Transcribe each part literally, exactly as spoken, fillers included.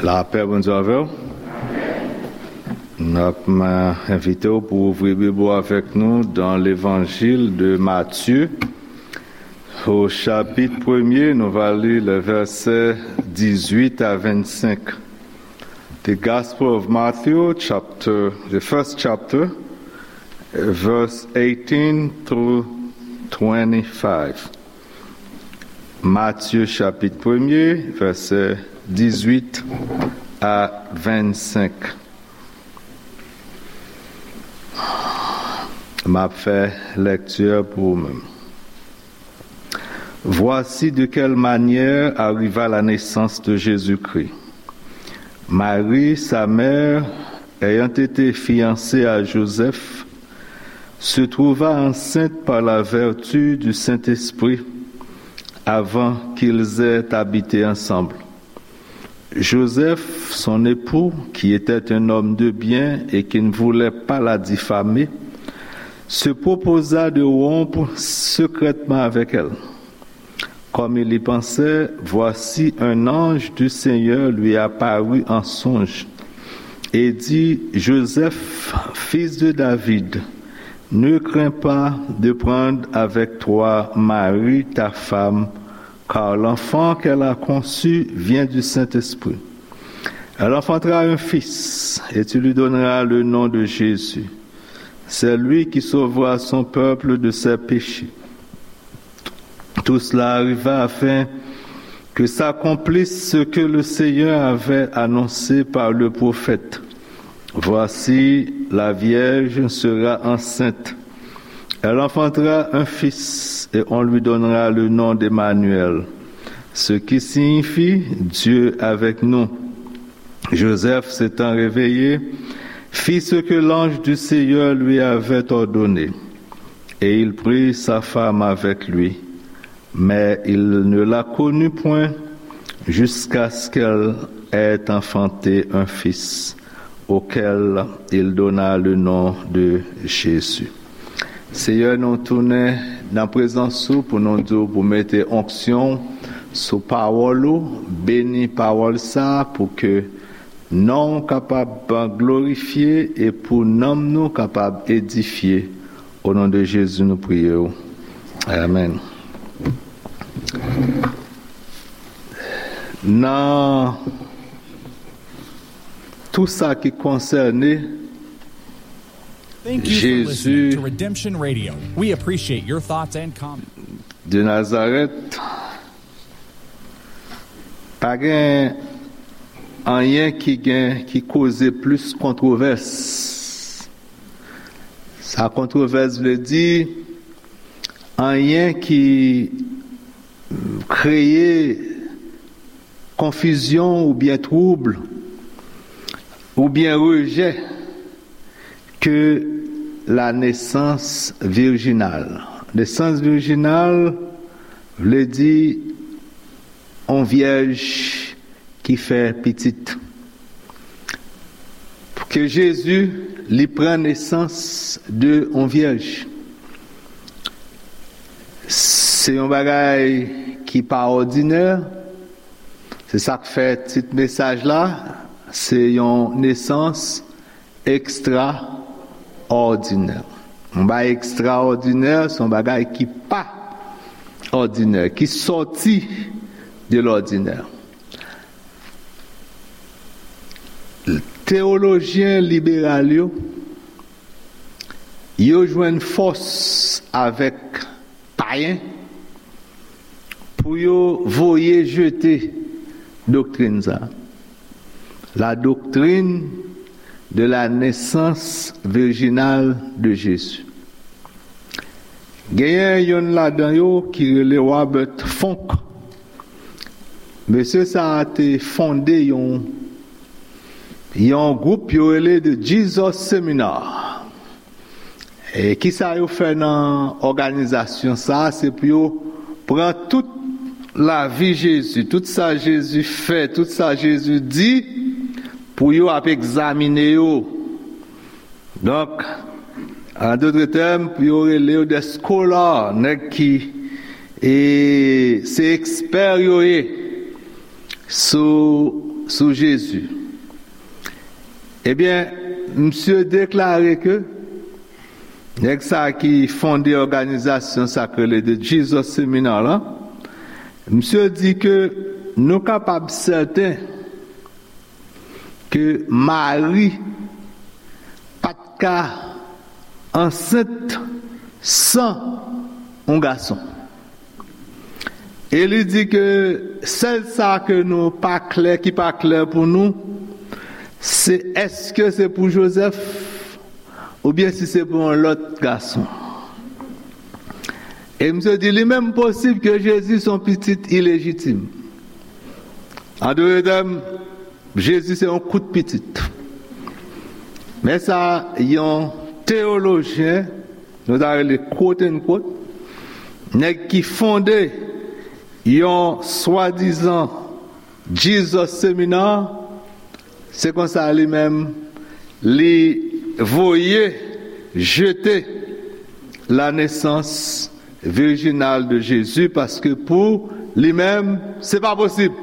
Lapè Bondye avè w. N ap, m, envite w pou ouvri Bib ou avèk nou dans l'Évangile de Matthieu, au chapitre premier, nou va li le verset dix-huit à vingt-cinq. The Gospel of Matthew, chapter, the first chapter, verse eighteen through twenty-five. Matye chapit premye, vèsè dizuit a vennsenk. M ap fè lèkti pou ou menm. Voici de quelle manière arriva la naissance de Jésus-Christ. Marie, sa mère, ayant été fiancée à Joseph, se trouva enceinte par la vertu du Saint-Esprit avant qu'ils aient habité ensemble. Joseph, son époux, qui était un homme de bien et qui ne voulait pas la diffamer, se proposa de rompre secrètement avec elle. Comme il y pensait, voici un ange du Seigneur lui apparut en songe et dit, Joseph, fils de David, ne crains pas de prendre avec toi Marie, ta femme, car l'enfant qu'elle a conçu vient du Saint-Esprit. Elle enfantera un fils, et tu lui donneras le nom de Jésus. C'est lui qui sauvera son peuple de ses péchés. Tout cela arriva afin que s'accomplisse ce que le Seigneur avait annoncé par le prophète. Voici, la vierge sera enceinte. Elle enfantera un fils et on lui donnera le nom d'Emmanuel, ce qui signifie Dieu avec nous. Joseph, s'étant réveillé, fit ce que l'ange du Seigneur lui avait ordonné, et il prit sa femme avec lui. Mais il ne la connut point jusqu'à ce qu'elle ait enfanté un fils, auquel il donna le nom de Jésus. Seyè, nou tounen nan prezans ou pou nou di w pou mete onksyon sou pawòl ou, beni pawòl sa a pou ke non w kapab glorifye e pou nanm nou kapab edifye. O non de Jezi nou priye w. Amèn. Nan tou sa ki konsène Thank you for listening Jezi to Redemption Radio. We appreciate your thoughts and comments. De Nazarèt, pa gen anyen ki gen, ki koze plis kontwovès. Sa kontwovès vle di anyen ki kreye konfizyon oubyen twoub oubyen rejè ke la nesans virjinal. Nesans virjinal vle di on vyèj ki fè pitit. Pou ke Jezi, li pran nesans de on vyèj. Se yon bagay ki pa òdinè. Se sa k fè tit mesaj la, se yon nesans ekstraòdinè. Yon bagay ekstraòdinè, se yon bagay ki pa òdinè, ki sòti de lòdinè. Teyolojyen liberal yo, yo jwenn fòs avèk payen pou yo voye jete doktrin sa a. La doctrine de la naissance virginale de Jésus. Genyen yonn ladan yo ki rele Robert Funk. Mesye sa a te fonde yon, yon gwoup yo rele The Jesus Seminar. E kisa yo fè nan òganizasyon sa a? Se pou yo pran tout lavi Jezi, tout sa Jezi fè, tout sa Jezi di, pou yo ap egzamine yo. Donk, an dotre tèm, pou yo rele yo des scholars, nèg ki, e, se ekspè yo ye sou sou Jezi. Ebyen, misye deklare ke nèg sa ki fonde òganizasyon sa k rele The Jesus Seminar la, misye di ke nou kapab sèten ke Mari pa t ka ansent san yon gason. E li di ke sèl sa ke nou pa klè, ki pa klè pou nou, se èske se pou Jozèf oubyen si se pou yon lòt gason. E misye di li menm posib ke Jezi se yon pitit ilejitim. An dòt tèm, Jezi se yon kout pitit. Men sa yon teyolojyen, nou ta rele quote unquote, nèg ki fonde yon swadizan Jesus Seminar, se konsa li menm, li voye jete la naissance virginale de Jésus, paske pou li menm, se pa posib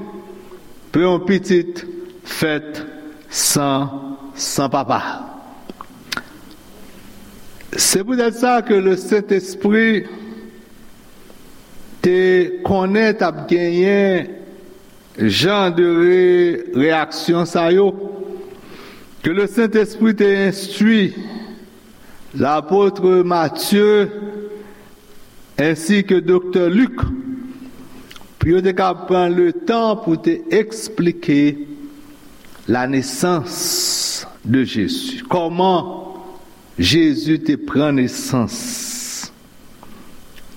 pou yon pitit fèt san, san papa. Se poutèt sa ke le Sentespri te konnen t ap genyen jan de re-, reyaksyon sa yo, ke le Sentespri te enstwi lapot Matye ensi ke doktè Lik, pou yo te ka pran le tan pou te eksplike la nesans de Jezi. Kòman Jezi te pran nesans?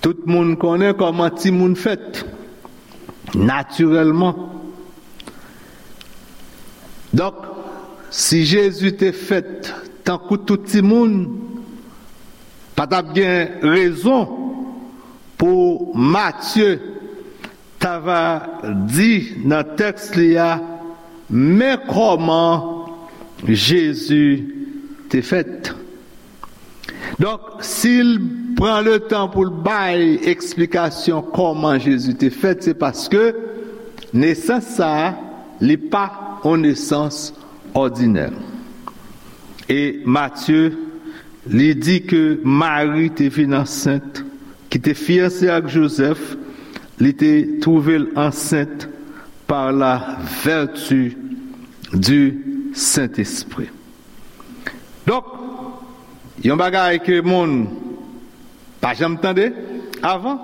Tout moun konnen kòman timoun fèt, natirèlman. Donk, si Jezi te fèt tankou tout timoun, pa t ap gen rezon pou Matye ta va di nan tèks li a, men kòman Jezi te fèt. Donk, si l pran le tan pou l bay eksplikasyon kòman Jezi te fèt, se paske nesans sa a, li pa yon nesans òdinè. E Matye, li di ke Mari te vin ansent, ki te fiyanse ak Jozèf, li te twouve l ansent par la vertu du Saint-Esprit. Donk, yon bagay ke moun pa janm tande avan,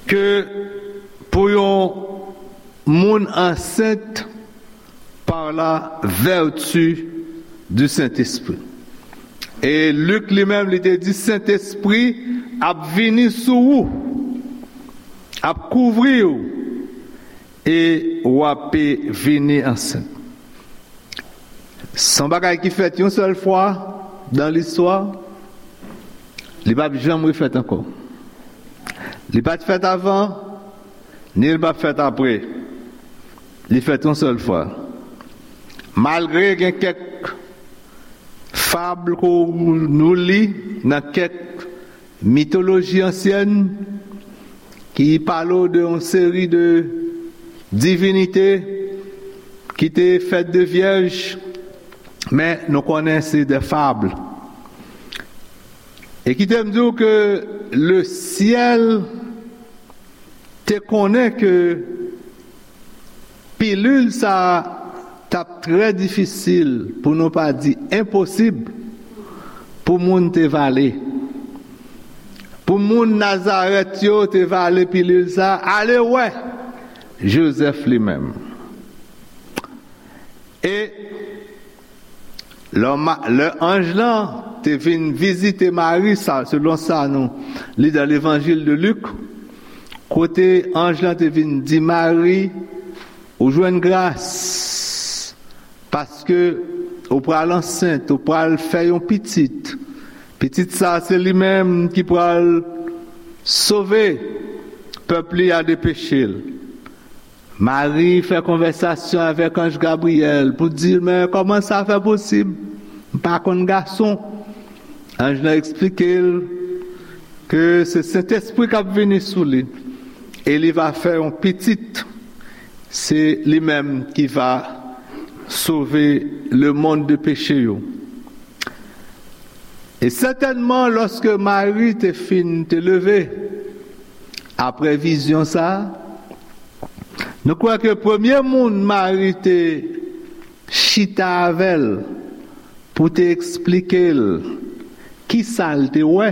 ke pou yon moun ansent par la vertu du Saint-Esprit. E Lik li menm, li te di, Sentespri ap vini sou ou, ap kouvri w, e w ap vini ansent. Se yon bagay ki fèt yon sèl fwa nan listwa, li p ap janm refèt ankò. Li pa t fèt avan, ni l p ap fèt apre. Li fèt yon sèl fwa. Malgre gen kèk fab ke nou li nan kèk mitoloji ansyèn ki pale w de yon seri de divinite ki te fèt de vyèj, men nou konnen se de fab. E kite m di w ke le syèl te konnen ke pilil sa a t ap trè difisil, pou nou pa di enposib, pou moun te vale. Pou moun Nazarèt yo te vale pilil sa a, ale wè Jozèf li menm. E lè ma-, lè anj lan te vin vizite Mari, sa, selon sa nou li dan Levanjil de Lik, kote anj lan te vin di Mari, ou jwenn gras, paske ou pral ansent, ou pral fè yon pitit. Pitit sa, se li menm ki pral sove pèp li a de peche l. Mari fè konvèsasyon avèk anj Gabriyèl pou di l, men kòman sa fè posib? M pa konn gason. Anj lan eksplike l ke se Sentespri k ap vini sou li e li va fè yon pitit. Se li menm ki va sove lemonn de peche yo. E sètènman, lòske Mari te fin te leve, apre vizyon sa a, nou kwè ke premye moun Mari te chita avè l pou te eksplike l ki sa l te wè,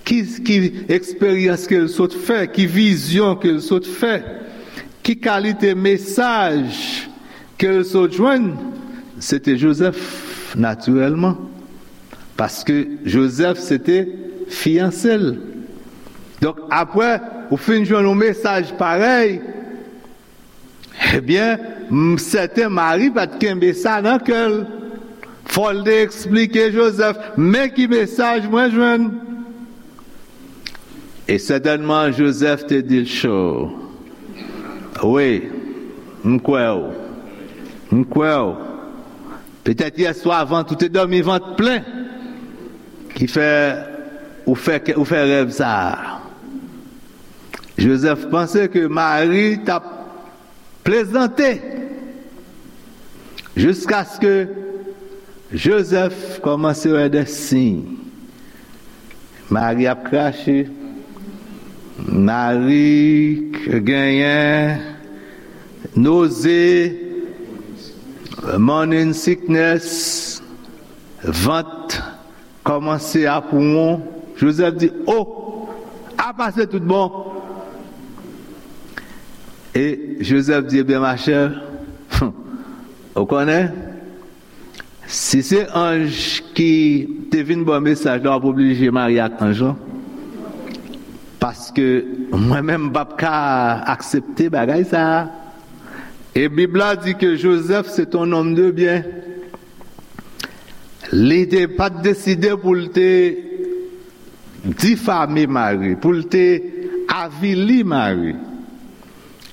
ki, ki eksperyans ke l sot fè, ki vizyon ke l sot fè, ki kalite mesaj ke l sot jwenn, se te Jozèf, natirèlman. Paske Jozèf se te fiyanse l. Donk, apre ou fin jwenn yon mesaj parèy, ebyen, m sèten Mari pa t kenbe sa nan kè l. Fò l te eksplike Jozèf, men ki mesaj mwen jwenn. E sètènman, Jozèf te di l cho. Wi, m kwè w. M kwè w. Petèt yèswa vant ou te dòmi vant plen ki fè ou fè, ou fè rèv sa a. Jozèf panse ke Mari t ap plezante jiskaske Jozèf kòmanse wè de siy. Mari ap krache, Mari genyen noze, morning sickness, vant kòmanse ap won. Jozèf di, "O, apa se tout bon?" E Jozèf di, "Ebyen, machè, ou konnen, si se anj ki te vin ba w mesaj la, w ap oblije marye ak anj lan. Paske mwen menm, m p ap ka aksepte bagay sa a." E Bib la di ke Jozèf se t on nonm de byen. Li te pa t deside pou l te difame Mari, pou l te avili Mari.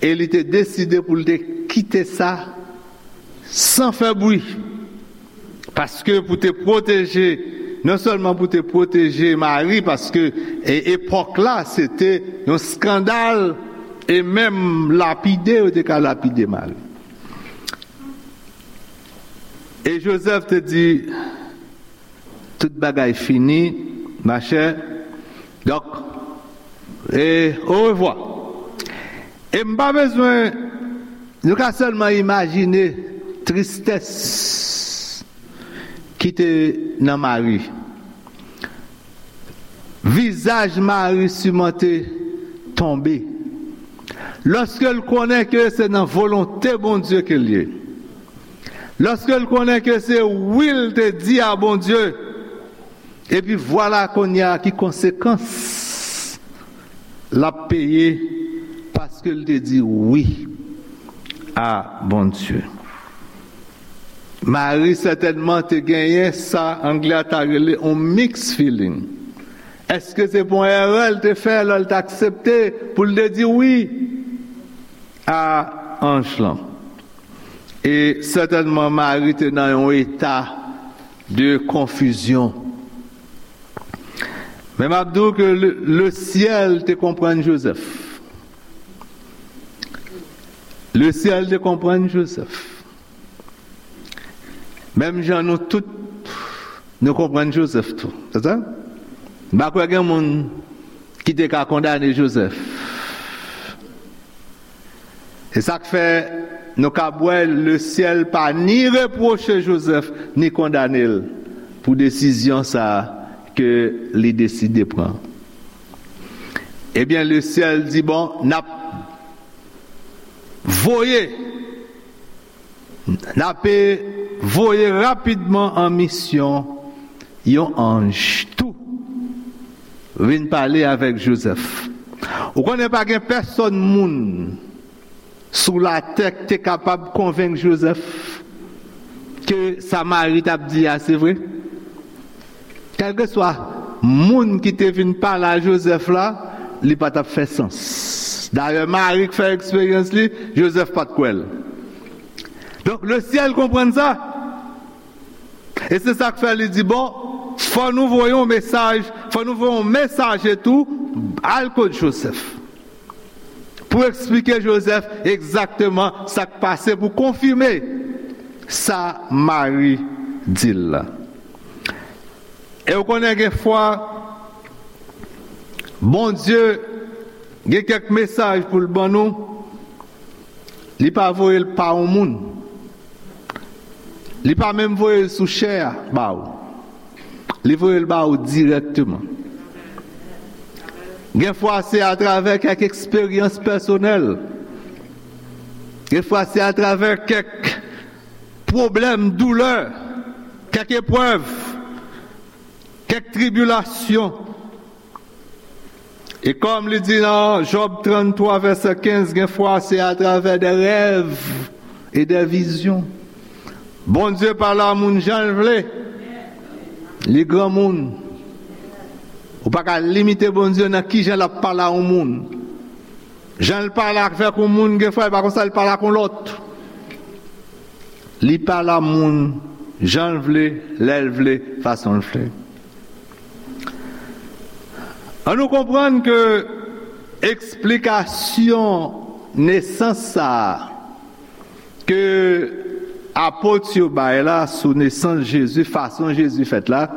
E li te deside pou l te kite sa san fè bri. Paske pou te pwoteje, non sèlman pou te pwoteje Mari, paske e, epòk la, se te yon eskandal, e menm lapide, yo te ka lapide Mari. E Jozèf te di, "Tout bagay fini, machè. Donk, e orevwa." E m pa bezwen, nou ka sèlman imajine tristès ki te nan Mari. Vizaj Mari siman te tonbe. Lòske l konnen ke se nan volonte Bondye ke l ye. Lòske l konnen ke se wi l te di a Bondye. Epi vwala kounye a ki konsekans l ap peye paske l te di wi a Bondye. Mari sètènman te genyen sa anglè a ta rele yon mixed feeling. Èske se pa yon erè l te fè lè l te aksepte pou l te di wi a anj lan? E sètènman, Mari te nan yon eta de konfizyon. Men m ap di w ke le, le syèl te konprann Jozèf. Le syèl te konprann Jozèf. Menm jan nou tout, nou konprann Jozèf tou. Se sa? M pa kwè gen moun ki te ka kondane Jozèf. Se sa k fè nou ka wè le syèl pa ni repwoche Jozèf, ni kondane l pou desizyon sa a ke li deside pran. Ebyen, le syèl di, "Bon, n ap voye, n ap voye rapidman an misyon yon anj tou vin pale avèk Jozèf." Ou konnen pa gen pèsonn moun sou latè k te kapab konvenk Jozèf ke sa Mari t ap di a se vre. Kèlkeswa moun ki te vin pale a Jozèf la, li pa t ap fè sans. Dayè, Mari k fè eksperyans li, Jozèf pa t kwè l. Donk, le syèl konprann sa. E se sa k fè li di, "Bon, fò nou voye yon mesaj, fò nou voye yon mesaje tou, al kot Jozèf." pou eksplike Jozèf egzakteman sa k pase, pou konfime sa Mari di l la. E w konnen, gen fwa, Bondye gen kèk mesaj pou l ban nou, li pa voye l pa yon moun. Li pa menm voye l sou chè a ba w. Li voye l ba w dirèkteman. Gen fwa se atravè kèk eksperyans pèsonèl. Gen fwa se atravè kèk pwoblèm, doulè, kèk eprèv, kèk tribilasyon. E kòm li di nan Jòb tranntwa vèsè kenz, gen fwa se atravè de rèv e de vizyon. Bondye pale a moun jan l vle. Li granmoun. Ou pa ka limite Bondye nan kijan l ap pale a yon moun. Jan l pale avèk yon moun, gen fwa, e pa konsa l pale ak yon lòt. Li pale a moun jan l vle, lè l vle, fason l vle. An nou konprann ke eksplikasyon nesans sa a ke apot yo bay la sou nesans Jezi, fason Jezi fèt la,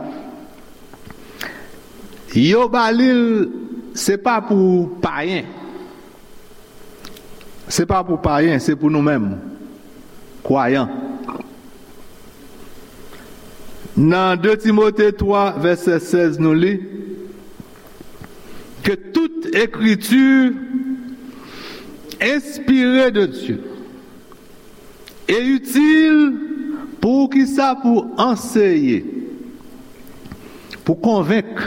yo ba li l, se pa pou payen. Se pa pou payen, se pou nou menm, kwayan. Nan de Timote twa, vèsè sèz, nou li, que toute écriture inspirée de Dieu est utile pour kisa? Pou anseye, pou konvenk,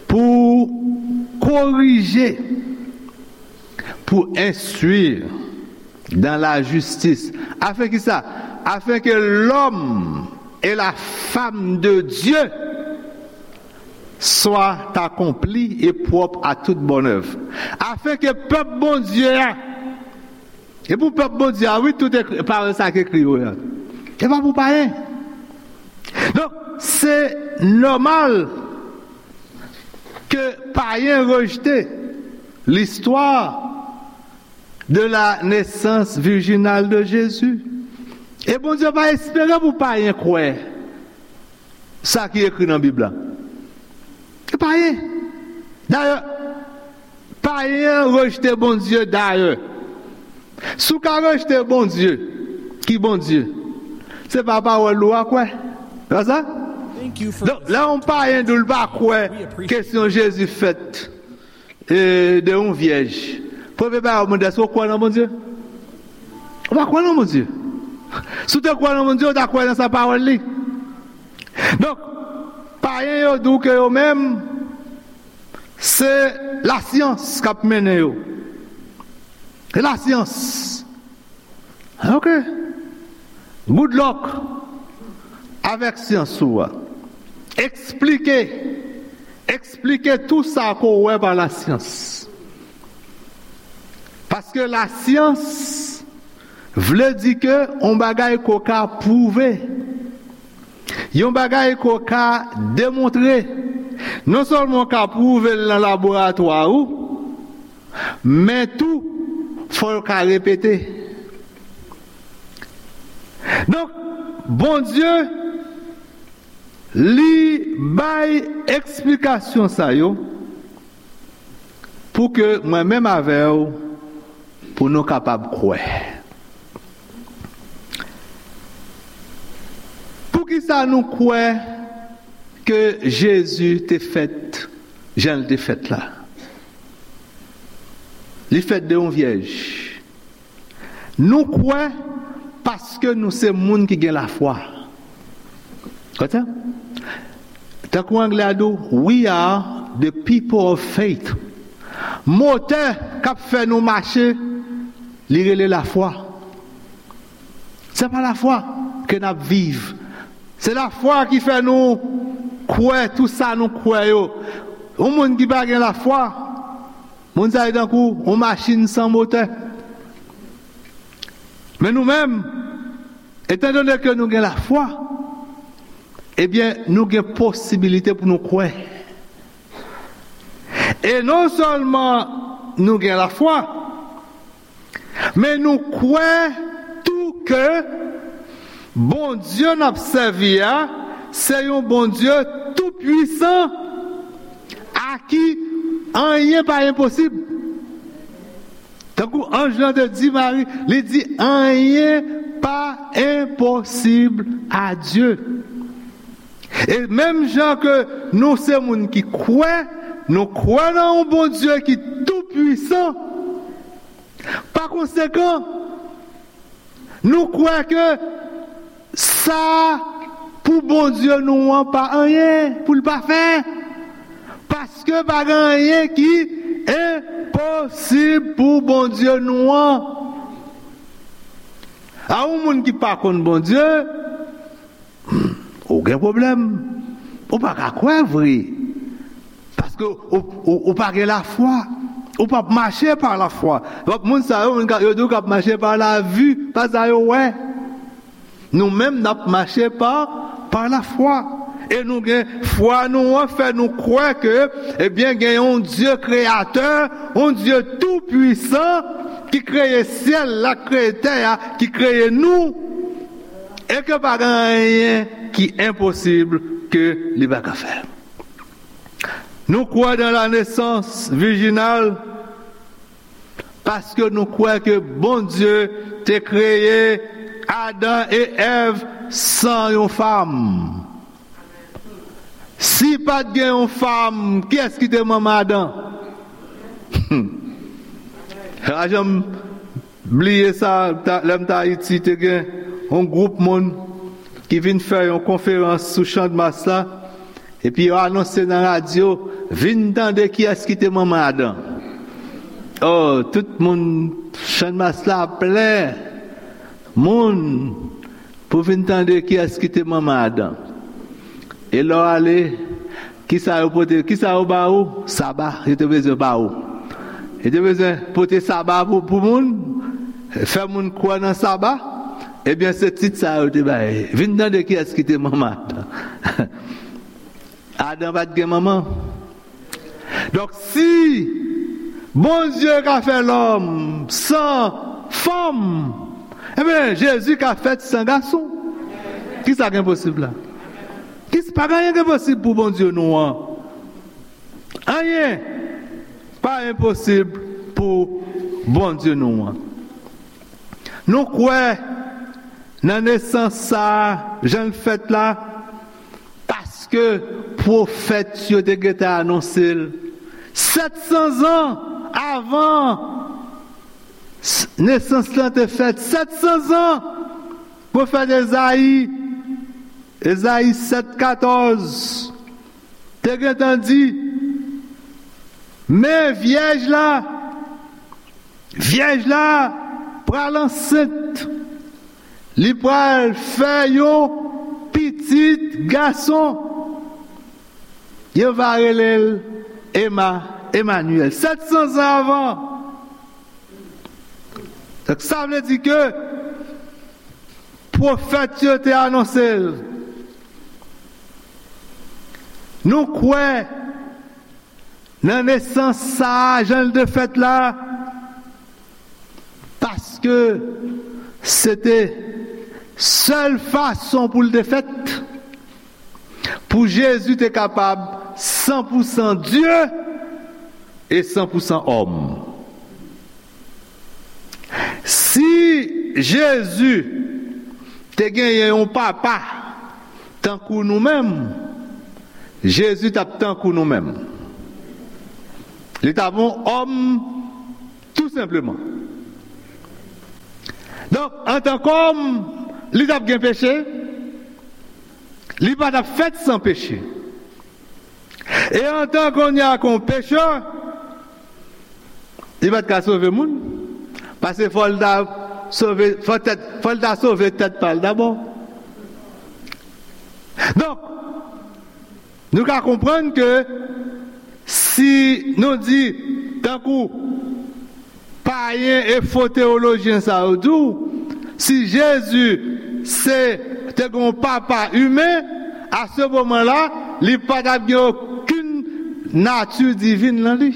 pou korije, pour instruire dans la justice. Afin kisa? Afin que l'homme et la femme de Dieu soient accomplis et propres à toute bonne œuvre. Afin que pèp Bondye a, e pou pèp Bondye a, wi, tout ekri, pawòl sa k ekri yo a. E pa pou payen. Donk, se nòmal ke payen rejte listwa de la nesans vijinal de Jezi. E Bondye pa espere pou payen kwè sa ki ekri nan Bib la. E payen. Dayè, payen an rejte Bondye dayè. Si w ka rejte Bondye, ki Bondye? Se pa pawòl ou a kwè. Se pa sa? Donk, lè yon payen di w l pa kwè kesyon Jezi fèt, e, de yon vyèj, premye bagay w mande, èske w kwè nan Bondye? Ou pa kwè nan Bondye. Si w te kwè nan Bondye, ou ta kwè nan sa pawòl li. Donk, payen yo di w ke yo menm, se lasyans k ap mennen yo. Se lasyans. Ok. Good luck avèk syans ou a. Eksplike. Eksplike tou sa ke w wè pa lasyans. Paske lasyans vle di ke yon bagay ke w ka pwouve. Yon bagay ke w ka demontre. Non sèlman w ka pwouve l nan laboratwa ou, men tou, fò l ka repete. Donk, Bondye, li bay eksplikasyon sa yo pou ke mwen menm avè w, pou nou kapab kwè. Poukisa nou kwè ke Jezi te fèt jan l te fèt la? Li fèt de yon vyèj. Nou kwè paske nou se moun ki gen lafwa. Konprann? Tankou anglè a di w, "We are the people of faith." Motè k ap fè nou mache, li rele lafwa. Se pa lafwa ke n ap viv. Se lafwa ki fè nou kwè tou sa nou kwè yo. Yon moun ki pa gen lafwa, moun sa yo tankou yon machin san motè. Men nou menm, etandone ke nou gen lafwa, ebyen, nou gen posibilite pou nou kwè. E non sèlman nou gen lafwa. Men nou kwè tou ke Bondye n ap sèvi a, se yon Bondye toupwisan, a ki anyen pa enposib. Tankou anj lan te di Mari, li di, anyen pa enposib a Dye. E menm jan ke nou se moun ki kwè, nou kwè nan yon Bondye ki toupwisan. Pa konsekan, nou kwè ke sa pou Bondye nou an pa anyen pou l pa fè. Paske pa gen anyen ki enposib pou Bondye nou an. A yon moun ki pa konn Bondye, ou gen pwoblèm. Ou pa ka kwè vre. Paske ou, ou, ou pa gen lafwa. Ou p ap mache pa lafwa. Donk, moun sa yo, moun ka, yo di w k ap mache pa lavi, pa sa yo wè. Nou menm, n ap mache pa, pa lafwa. E nou gen fwa nou an fè nou kwè ke, ebyen, gen yon Dye kreyatè, yon Dye toupwisan ki kreye syèl la, ki kreye tè a, ki kreye nou. E ke pa gen anyen ki enposib ke li pa ka fè. Nou kwè dans la naissance virginale paske nou kwè ke Bondye te kreye Adan e Èv san yon fanm. Si pa t gen yon fanm, kiyès ki te manman Adan? Pa janm bliye sa, ta- lè m t Ayiti, te gen yon gwoup moun ki vin fè yon konferans sou Channmas la, epi yo anonse nan radyo, vin tande kiyès ki te manman Adan. Oh, tout moun, Channmas la plen moun pou vin tande kiyès ki te manman Adan. E lè w ale, kisa yo pote, kisa yo ba ou? Saba, yo te bezwen ba ou. Yo te bezwen pote saba pou, pou moun, fè moun kwè nan saba. Ebyen, se tit sa yo te bay. Vin tande kiyès ki te manman Adan. Adan pa t gen manman. Donk, si Bondye ka fè lòm san fanm, ebyen, Jezi ka fèt san gason. Kisa k enposib la? Kis- pa gen anyen k enposib pou Bondye nou an. Anyen pa enposib pou Bondye nou an. Nou kwè nan nesans sa a, jan l fèt la, paske pwofèt yo te gentan anonse l sèt san zan avan s- nesans lan te fèt. Sèt san zan, pwofèt Ezayi, Ezayi sèt katòz, te gentan di, men vyèj la, vyèj la pral ansent, li pral fè yon pitit gason. Yo va rele l Ema, Emanyèl. Sèt san zan avan. Donk, sa vle di ke pwofèt yo te anonse l. Nou kwè nan nesans sa a, jan l te fèt la, paske se te sèl fason pou l te fèt, pou Jezi te kapab san pou san Dye e san pou san òm. Si Jezi te genyen yon papa tankou nou menm, Jezi t ap tankou nou menm. Li t ap yon òm, tou senpleman. Donk, antank òm, li t ap gen peche, li pa t ap fèt san peche. E antan kounye a kon pechè, li pa t ka sove moun. Paske fò l ta sove, fò tèt, fò l ta sove tèt pa l dabò. Donk, nou ka konprann ke si nou di, tankou payen e fo teyolojyen sa yo di w, si Jezi se, te gen yon papa imen, a se moman la, li pa t ap gen okenn nati divin nan li.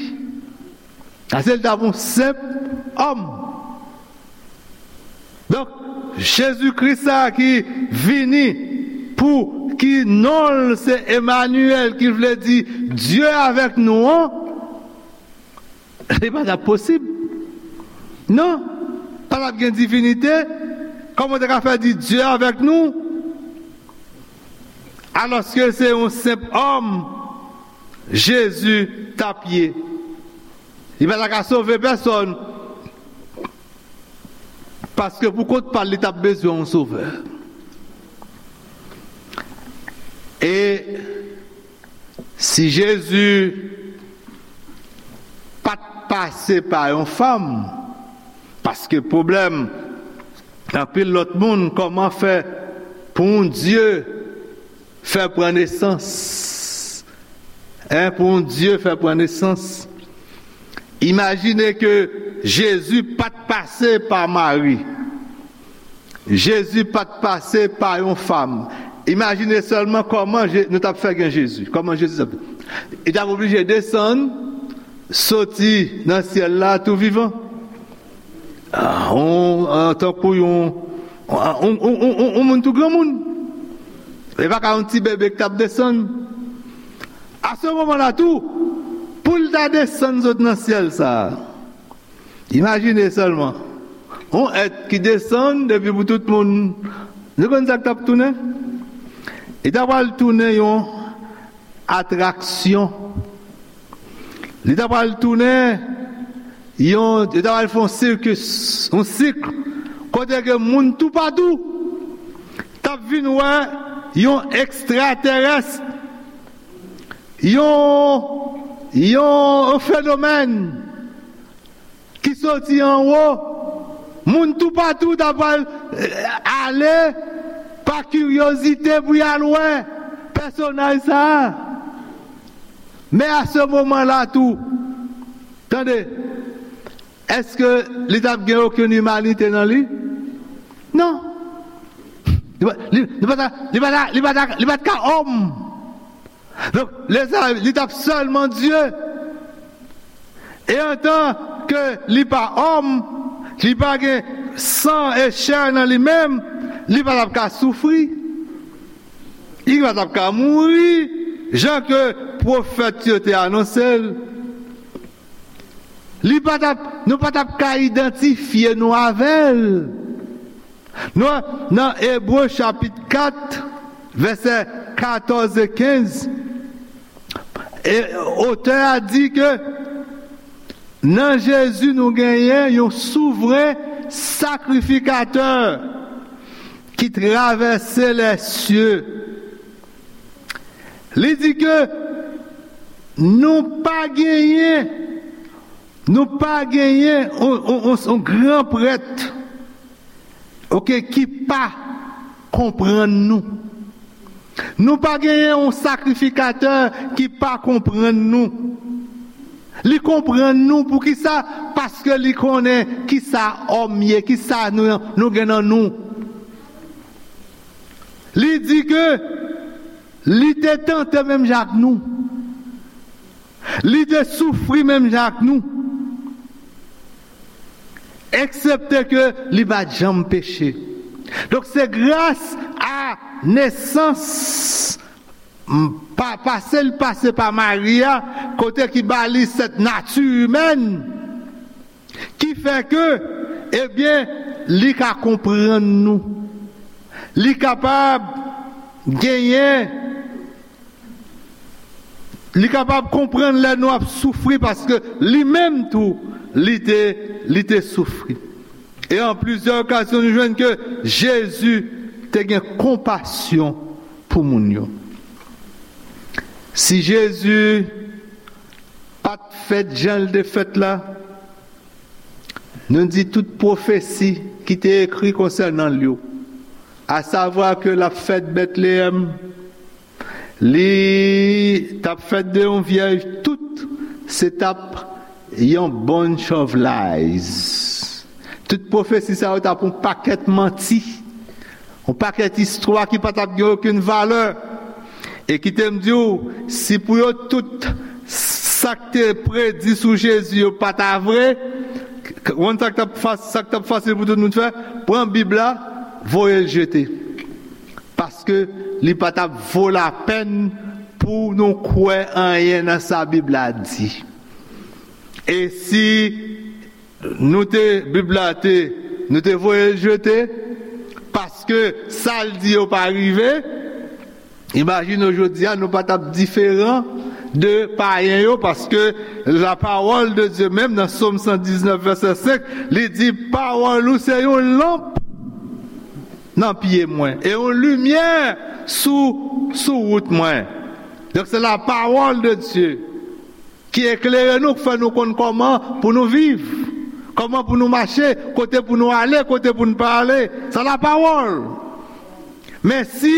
Paske l t ap yon senp òm. Donk, Jezi Kris sa a ki vini pou ki non l se Emanyèl, ki vle di Dye avèk nou an, li pa t ap posib. Non, pa t ap gen divinite. Kòman w te ka fè di Dye avèk nou? Alòske se yon senp òm Jezi t ap ye. Li pa ta ka sove pèsòn. Paske pou kont pa l, li t ap bezwen yon sovè. E si Jezi pa t pase pa yon fanm, paske pwoblèm anpil lòt moun, kòman fè pou yon Dye fè pran nesans? Hein, pou yon Dye fè pran nesans? Imajine ke Jezi pa t pase pa Mari. Jezi pa t pase pa yon fanm. Imajine sèlman kòman Je- nou t ap fè gen Jezi. Kòman Jezi t ap. Li t ap oblije desann, soti nan syèl la tou vivan. Ah, on, an tankou yon, on, on, on, on, on moun tou granmoun. E pa ka yon ti bebe ki t ap desann. A se moman la tou, pou l ta desann sot nan syèl sa a. Imajine sèlman, yon èt ki desann depi pou tout moun. Nou konn sa k t ap tounen? Li ta pral tounen yon atraksyon. Li ta pral tounen yon, li ta pral fè yon sikis, yon sik, kote ke moun toupatou t ap vin wè yon ekstratèrès, yon, yon fenomèn ki soti anwo. Moun toupatou ta pral, eh, ale pa kiryozite pou y al wè pèsonaj sa a. Men a se moman la tou, tande, èske li t ap gen okenn imanite nan li? Non. Li pa, li, li pa ta, li pa ta, li pa ta, li pa t ka òm. Donk, lezanmi, li t ap sèlman Dye. E antan ke li pa òm, li pa gen san e chè nan li menm, li pa t ap ka soufri. Li pa t ap ka mouri, jan ke pwofèt yo te anonse l. Li pa t ap, nou pa t ap ka idantifye nou avè l. Nou, nan Ebre chapit kat, vèsè katòz e kenz, e otè a di ke nan Jezi nou genyen yon souvren sakrifikatè ki travèse lèsye. Li di ke nou pa genyen, nou pa genyen on, on, on, on gran prèt, oke, ki pa konprann nou. Nou pa genyen yon sakrifikatè ki pa konprann nou. Li konprann nou. Poukisa? Paske li konnen kisa òm ye, kisa nou, nou gen nan nou. Li di ke li te tante menm jan ak nou. Li te soufri menm jan ak nou. Eksepte ke li pa t janm peche. Donk, se gras a nesans, m, pa, pase l pase pa Mari a, kote ki ba li sèt nati imèn, ki fè ke, ebyen, li ka konprann nou. Li kapab genyen, li kapab konprann lè nou ap soufri, paske li menm tou, li te, li te soufri. E an plizyè okazyon, nou jwenn ke Jezi te gen konpasyon pou moun yo. Si Jezi pa t fèt jan l te fèt la, nou di tout pwofesi ki te ekri konsènan l yo, asavwa ke l ap fèt Betleyèm, li t ap fèt de yon vyèj, tout se t ap yon bunch of lies. Tout pwofesi sa yo t ap yon pakèt manti, yon pakèt istwa ki pa t ap gen okenn valè. E kite m di w, si pou yo tout s-, sa k te predi sou Jezi yo pa ta vre, w konn sa k t ap fa- sa k t ap fasil pou tout moun fè? Pran Bib la, voye l jete. Paske li pa t ap vo lapèn pou nou kwè anyen nan sa Bib la di. E si nou te, Bib la te, nou te voye l jete, paske sa l di yo pa rive, imajine w jodi a, nou pa t ap diferan de payen yo, paske la parole de Dieu menm nan Sòm san diznèf vèsè senk, li di, pawòl ou se yon lanp nan pye mwen e yon limyè sou, sou wout mwen. Donk, se la parole de Dieu ki eklere nou, k fè nou konn kòman pou nou viv, kòman pou nou mache, kote pou nou ale, kote pou nou pa ale. Sa la pawòl. Men si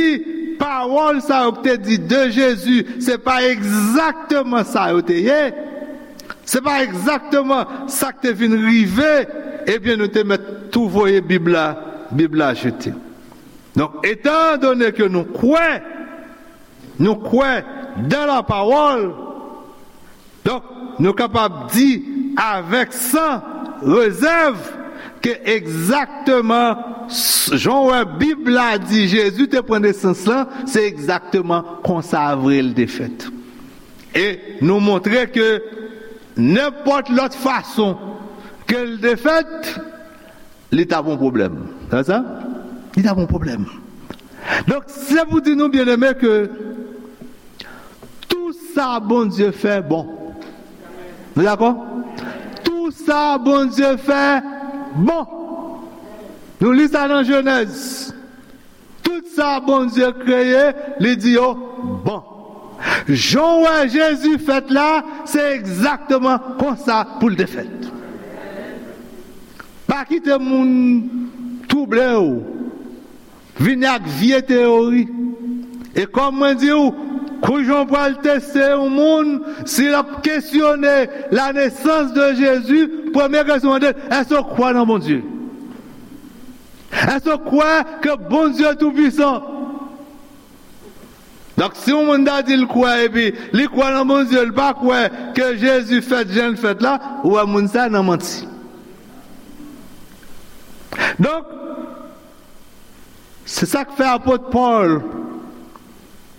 pawòl sa yo k te di de Jezi, se pa egzakteman sa yo te ye, se pa egzakteman sa k te vin rive, ebyen, nou te mèt tou voye Bib la, Bib la jete. Donk, etan done ke nou kwè, nou kwè dan la pawòl, donk, nou kapab di avèk san rezèv ke egzakteman s- jan w wè Bib la di Jezi te pran nesans lan, se egzakteman konsa vre l te fèt. E nou montre ke nenpòt lòt fason ke l te fèt, li t ap yon pwoblèm. Sa sa? Li t ap yon pwoblèm. Donk, se pou di nou, byeneme, ke tou sa Bondye fè bon. Nou dakò? Tou sa Bondye fè bon. Nou li sa nan Jenèz. Tout sa Bondye kreye, li di yo bon. Jan w wè Jezi fèt la, se egzakteman konsa pou l te fèt. Pa kite moun twouble w, vini ak vye teyori. E kòm mwen di w, kou jan w pral teste yon moun, si l ap kesyone la nesans de Jezi, premye kesyon w mande l, èske w kwè nan Bondye? Èske w kwè ke Bondye toupwisan? Donk, si yon moun ta di l kwè epi li kwè nan Bondye, li pa kwè ke Jezi fèt jan l fèt la, ou wè moun sa nan manti. Donk, se sa k fè apot Pòl,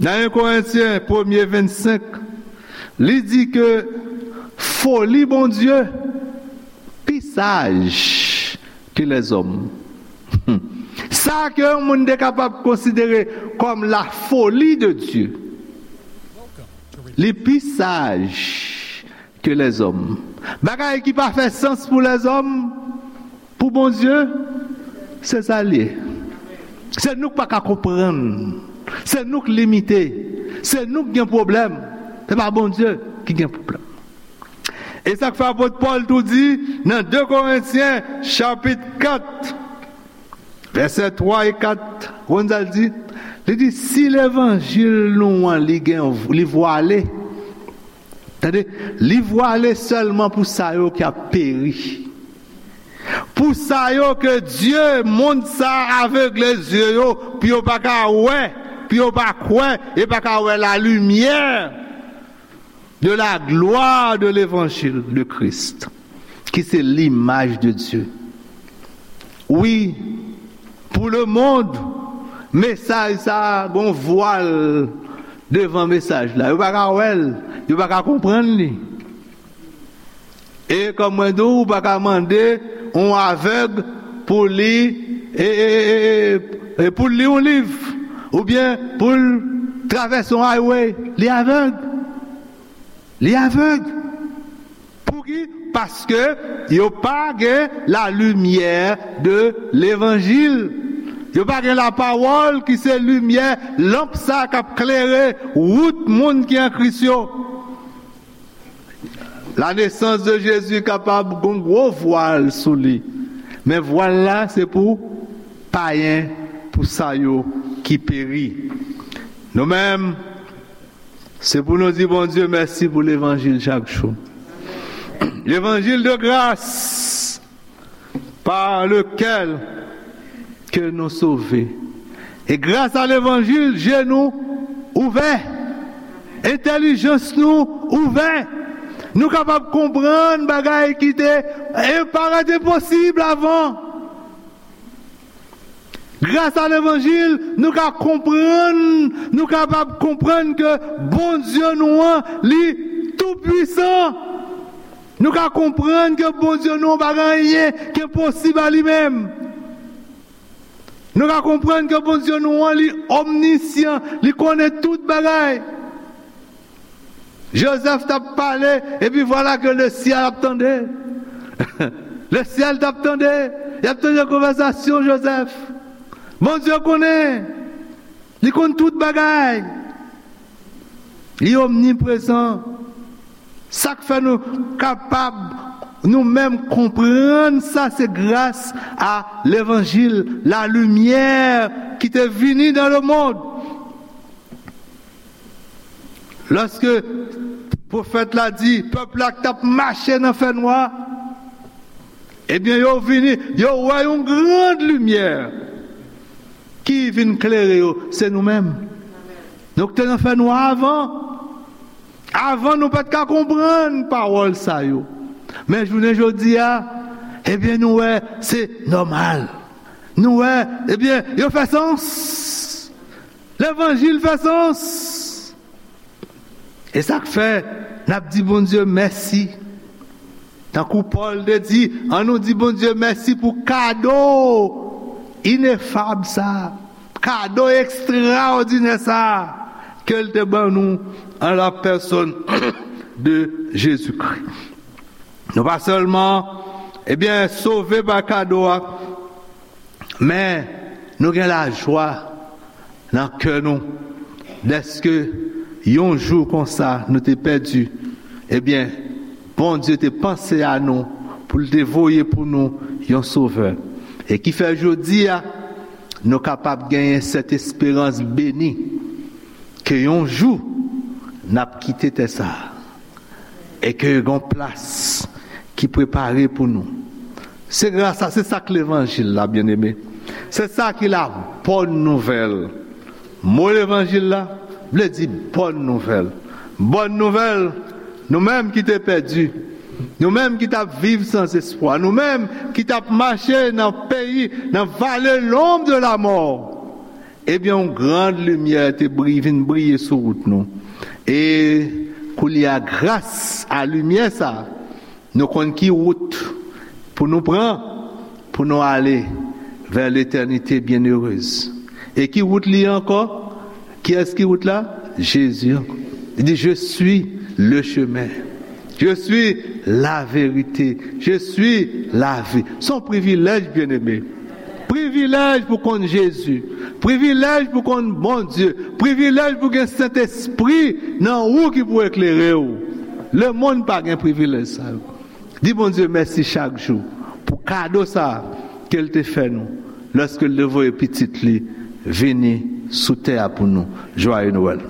nan en Korentyen premye vennsenk, li di ke foli Bondye pi saj ke lèzòm. Sa ke yon moun te kapab konsidere kòm la foli de Dye, li pi saj ke lèzòm. Bagay ki pa fè sans pou lèzòm, pou Bondye, se sa l ye. Se nou k pa ka konprann. Se nou k limite. Se nou k gen pwoblèm. Se pa Bondye ki gen pwoblèm. E sa k fè apot Pòl tou di nan de Korentyen chapit kat, vèsè twa e kat, w konn sa l di? Li di, si levanjil nou an, li gen, li vwale, tande, li vwale sèlman pou sa yo k ap peri. Pou sa yo ke Dye, mond sa a avegle zye yo, pou yo pa ka wè, pou yo pa kwè, e pa ka wè la limyè de la gloire de l'évangile de Christ, ki se limaj de Dye. Wi, pou lemonn, mesaj sa a, gon vwal devan mesaj la. Yo pa ka wè l, yo pa ka konprann li. E kòm mwen di w, ou pa ka mande yon avèg pou li, e, e, e, e, e, pou li yon liv, oubyen pou l travèse yon highway, li avèg. Li avèg. Pouki? Paske yo pa gen la limyè de levanjil. Yo pa gen la pawòl ki se limyè, lanp sa k ap klere wout moun ki an Kris yo. La nesans de Jezi kapab gon gwo vwal sou li. Men vwal la se pou payen, pou sa yo ki peri. Nou menm, se pou nou di Bondye mèsi pou levanjil chak jou. Levanjil de gras par lequel que nous sauvés. E gras a levanjil, je nou ouvè, entèlijans nou ouvè. Nou kapab konprann bagay ki te e parèt enposib avan. Gras a levanjil, nou ka konprann, nou kapab konprann ke Bondye nou an, li toupwisan. Nou ka konprann ke Bondye nou an pa gen anyen ki enposib a li menm. Nou ka konprann ke Bondye nou an, li omnisyan, li konnen tout bagay. Jozèf t ap pale, epi vwala ke lesyèl ap tande. Lesyèl t ap tande. Y ap tande konvèsasyon Jozèf. Bondye konnen. Li konn tout bagay. Li omniprezan. Sa k fè nou kapab nou menm konprann sa, se gras a levanjil, la limyè ki te vini dans le monde. Lòske pwofèt la di pèp la k t ap mache nan fènwa, ebyen, yo vini, yo wè yon gran limyè ki vin klere yo, se nou menm. Nou k te nan fènwa avan. Avan, nou pa t ka konprann pawòl sa yo. Men jounen jodi a, ebyen, nou wè se nòmal. Nou wè, ebyen, yo fè sans. Levanjil fè sans. E sa k fè n ap di Bondye mèsi. Tankou Pòl te di, ann nou di Bondye mèsi pou kado inefab sa, kado ekstraòdinè sa ke l te ban nou an la pèsòn de Jezikri. Nou pa sèlman, ebyen, sove pa kado a, men nou gen lajwa nan kè nou, dèske yon jou konsa nou te pèdi, ebyen, Bondye te panse a nou pou l te voye pou nou yon Sovè. E ki fè jodi a, nou kapab genyen sèt esperans beni ke yon jou n ap kite tè sa a e ke gen yon plas ki prepare pou nou. Se gras a, se sa k levanjil la, byeneme. Se sa ki la bòn nouvèl. Mo levanjil la vle di bòn nouvèl. Bòn nouvèl, nou menm ki te pèdi, nou menm ki t ap viv san espwa, nou menm ki t ap mache nan peyi, nan vale lonb de lamò, ebyen, yon gran limyè te bri-, vin briye sou wout nou. E koulye a, gras a limyè sa a, nou konn ki wout pou nou pran, pou nou ale vè letènite byenerez. E ki wout li ye ankò? Kiyès ki wout la? Jezi ankò. Li di, "Je suis le chemin. Je suis la vérité. Je suis la vie." Se yon privilèj, byeneme. Privilèj pou konn Jezi. Privilèj pou konn Bondye. Privilèj pou gen Sentespri nan ou ki pou eklere w. Lemonn pa gen privilèj sa yo. Di Bondye mèsi chak jou pou kado sa a ke l te fè nou lòske l te voye Pitit li vini sou tè a pou nou. Jwaye Nwèl.